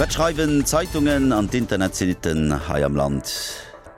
Wat schreiwen d'Zeitungen an d'Internetsitten hei am Land?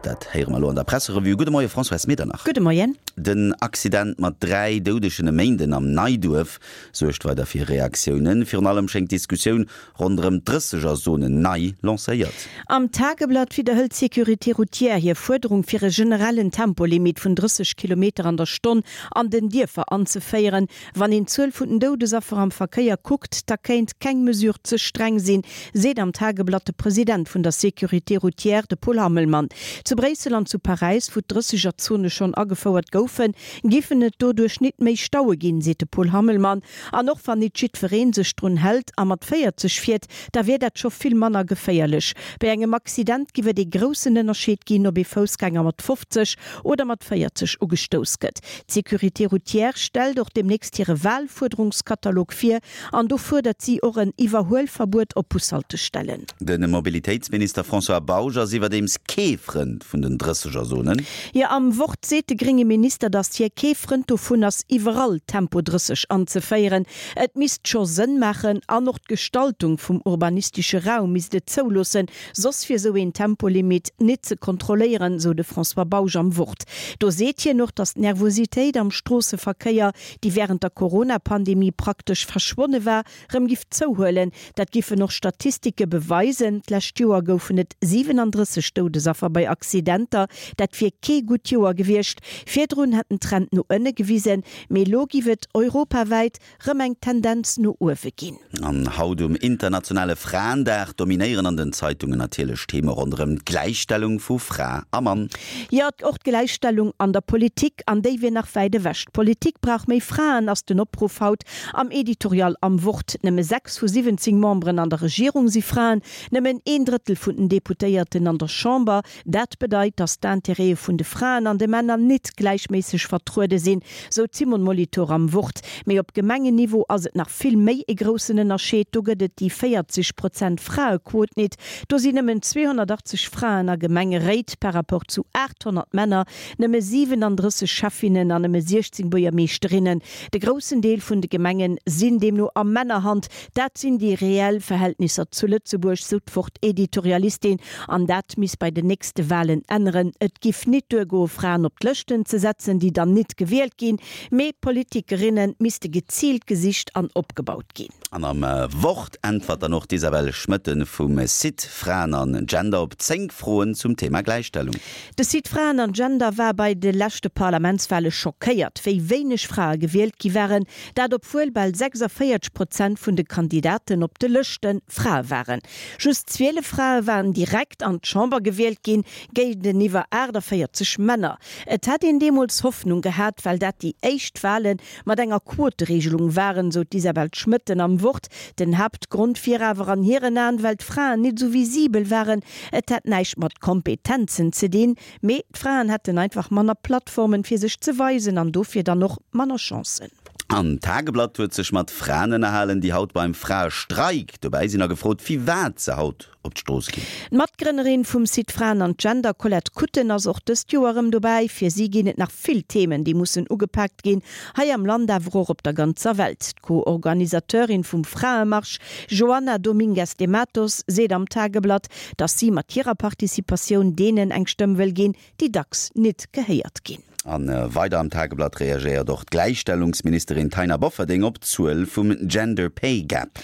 Dat héiere mer elo an der Presserevue. Gudde Moie Françoise Medernach. Gudde Moien. Den Accident mat 3 Doudegen e Méinden am Neiduerf suergt weider fir Reaktiounen. Virun allem schéngt d'Diskussioun ronderëm d'Drëssegerzone nei lancéiert. Am Tageblatt widderhëlt d'Sécurité routière hir Fuerderung fir e generellen Tempolimit vun 30 Kilometer an der Stonn an den Dierfer anzeféieren. Wann een d'Zuel vun den Doudesaffer am Verkéier kuckt, da kéint keng Mesure ze streng sinn, seet am Tageblatt de President vun der Sécurité routière, de Paul Hammelmann. Zu Bréissel an zu Paräis, wou d'Drëssegerzone schonn agefouert goufen, giffen et doduerch nit méi Staue ginn, seet de Paul Hammelmann. An och wann nit jiddweree sech drun hält a mat 40 fiert, da wier dat scho vill manner geféierlech. Bei engem Accident giff et ee groussen Ënnerscheed ginn, ob ee Foussgänger mat 50 oder mat 40 ugestouss gëtt. D'Sécurité routière stellt och deemnächst hire Walfuerderungskatalog vir an do fuerdert si och en Iwwerhuelverbuet op Bushaltestellen. De Mobilitéitsminister François Bausch ass iwwerdeems kee Frënd vun den Drëssegerzonen. Jo, am Wort seet de grénge Minister, datt hie kee Frënd dovun ass, iwwerall Tempo 30 anzeféieren. Et misst scho Sënn maachen an och d'Gestaltung vum urbanistesche Raum misst et zouloossen, Soss wier sou een Tempolimit nit ze kontrolléieren, sou de François Bausch am Wort. Do seet hien och, datt d'Nervositéit am Stroosseverkéier, déi wärend der Corona-Pandemie praktesch verschwonne war, rëm giff zouhuelen. Dat giffen och Statistike beweisen. D'lescht Joer goufen et 37 Doudesaffer bei Accidenter. Dat wier kee gutt Joer gewiescht. Virdrun hätt den Trend no ënne gewisen, mee elo giff et europawäit rëm eng Tendenz no uewe ginn. An haut um internationale Fraendag dominéieren an den Zeitungen natierlech Theme ronderëm d'Gläichstellung vu Fra a Mann. Jo, och d'Gläichstellung an der Politik, an déi wier nach wäit ewech. D'Politik brauch méi Fraen, ass den Opruff haut am Editorial am Wort. Nëmme 6 vu 17 Memberen an der Regierung si Fraen, nëmmen een Drëttel vun den Deputéierten an der Chamber. Dat bedeit, datt d'Intérêtë vun de Fraen an de Männer nit gläichméisseg vertruede sinn, sou d'Simone Molitor am Wort. Mee op Gemengenniveau ass et nach vill méi e groussen Ënnerscheed, do gëtt et déi 40 Prozent Fraequot nit. Do sinn nëmmen 280 Fraen a Gemengeréit par rapport zu 800 Männer, nëmme 37 Schäffinnen an nëmme 16 Buergermeeschterinnen. De groussen Deel vun de Gemenge sinn deemno a Männerhand. Dat sinn déi reell Verhältnisser zu Lëtzebuerg, sou d'Wort-Editorialistin. An dat misst bei den nächste Walen änneren. Et giff nit duergoe Fraen op d'Lëschten ze setzen, déi dann nit gewielt ginn, mee Politikerinne misste geziilt gesicht an opgebaut ginn. An am Wort äntwert dann och d'Isabelle Schmoetten vum Site Fraen an Gender op 10 Froen zum Thema Gläichstellung. De Site Fraen an Gender war bei de leschte Parlamentswale schockéiert, wéi wéineg Frae gewielt gi waren. Dat obwuel bal 46 Prozent vun de Kandidaten op de Lëschte Frae waren. Just 12 Frae waren direkt an d'Chamber gewielt ginn, géinteniwwer 48 Männer. Et hätt een deemools Hoffnung gehat, well dat déi éischt Wale mat enger Quotereegelung waren, sou d'Isabel Schmoetten am Wort. Den Haaptgrond wier awer an hiren Aen, well d'Fraen nit esou visibel waren. Et hätt näischt mat Kompetenzen ze dinn, mee d'Fraen hätten einfach manner Plattformen, fir sech ze weisen an dofir dann och manner Chancen. An d'Tageblatt huet sech mat Fraen ënnerhalen, déi haut beim Fraestreik dobäi sinn a gefrot, firwat se haut op d'Strooss ginn. D'Matgrënnerin vum Site Fraen an Gender, Colette Kutten, ass och dëst Joer erëm dobäi. Fir si ginn et nach vill Themen, déi mussen ugepaakt ginn, hei am Land awer och op der ganzer Welt. D'Co-Organisateurin vum Fraemarsch, Joana Domingues de Matos, seet am Tageblatt, datt si mat hirer Participatioun deenen eng Stëmm wëll ginn, déi dacks nit gehéiert ginn. A weider am Tageblatt reagéiert och d'Gläichstellungsministerin Taina Bofferding op d'Zuel vum Gender Pay Gap.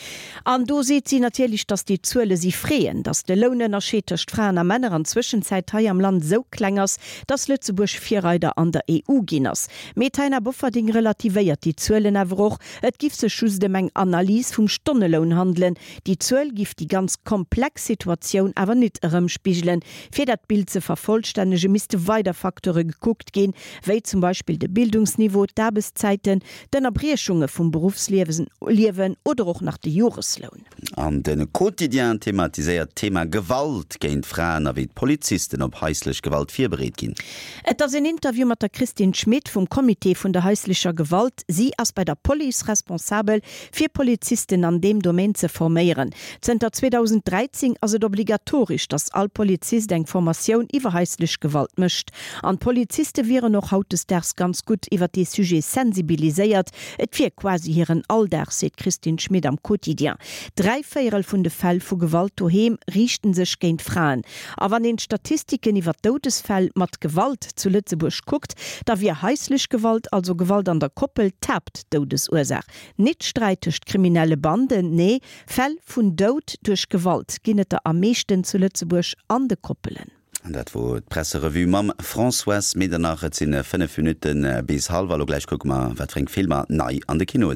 An do seet si natierlech, datt déi Zuele si freeën, datt de Lounënnerscheed tëscht Fraen a Männer an Zwëschenzäit hei am Land esou kleng ass, datt Lëtzebuerg Virreider an der EU ginn ass. Mee d'Taina Bofferding relativéiert déi Zuelen awer och, et giff sech just ëm eng Analys vum Stonneloun handelen, Déi Zuel giff déi ganz komplex Situatioun awer nit erëmspigelen. Fir dat Bild ze vervollstännege misste weider Facteure gekuckt ginn, wéi zum Beispill de Bildungsniveau, d'Aarbechtszäiten, d'Ënnerbriechunge vum Beruffsliewen oder och nach de Joresloun. An de Quotidien thematiséiert d'Thema Gewalt géint Fraen a wéi d'Polizisten op haislech Gewalt virbereet ginn. Et ass een Interview mat der Christine Schmit vum Comité vun der haislecher Gewalt. Si ass bei der Police responsabel fir Polizisten an deem Domaine ze forméieren. Zënter 2013 ass et obligatoresch, datt all Polizist eng Formatioun iwwer haislech Gewalt mécht. An d'Poliziste wieren och. och hautdesdaags ganz gutt iwwer dee Sujet sensibiliséiert. Et wier quasi hiren Alldag, seet d'Christine Schmit am Quotidien. Dräivéierel vun de Fäll vu Gewalt doheem riichten sech géint Fraen. A wann een d'Statistiken iwwer d'Doudesfäll mat Gewalt zu Lëtzebuerg kuckt, da wier haislech Gewalt, also Gewalt an der Koppel, d'Haaptdoudesursaach. Nit Sträit tëscht kriminelle Banden, nee, Fäll vun Doud duerch Gewalt ginn et der am meeschten zu Lëtzebuerg an de Koppelen. An dat wor d'Presserevue mam Françoise Medernach. Et sinn 5 Minutte bis hallwer. Elo gläich kucke mer, wat fir eng Filmer nei an de Kinoe sinn.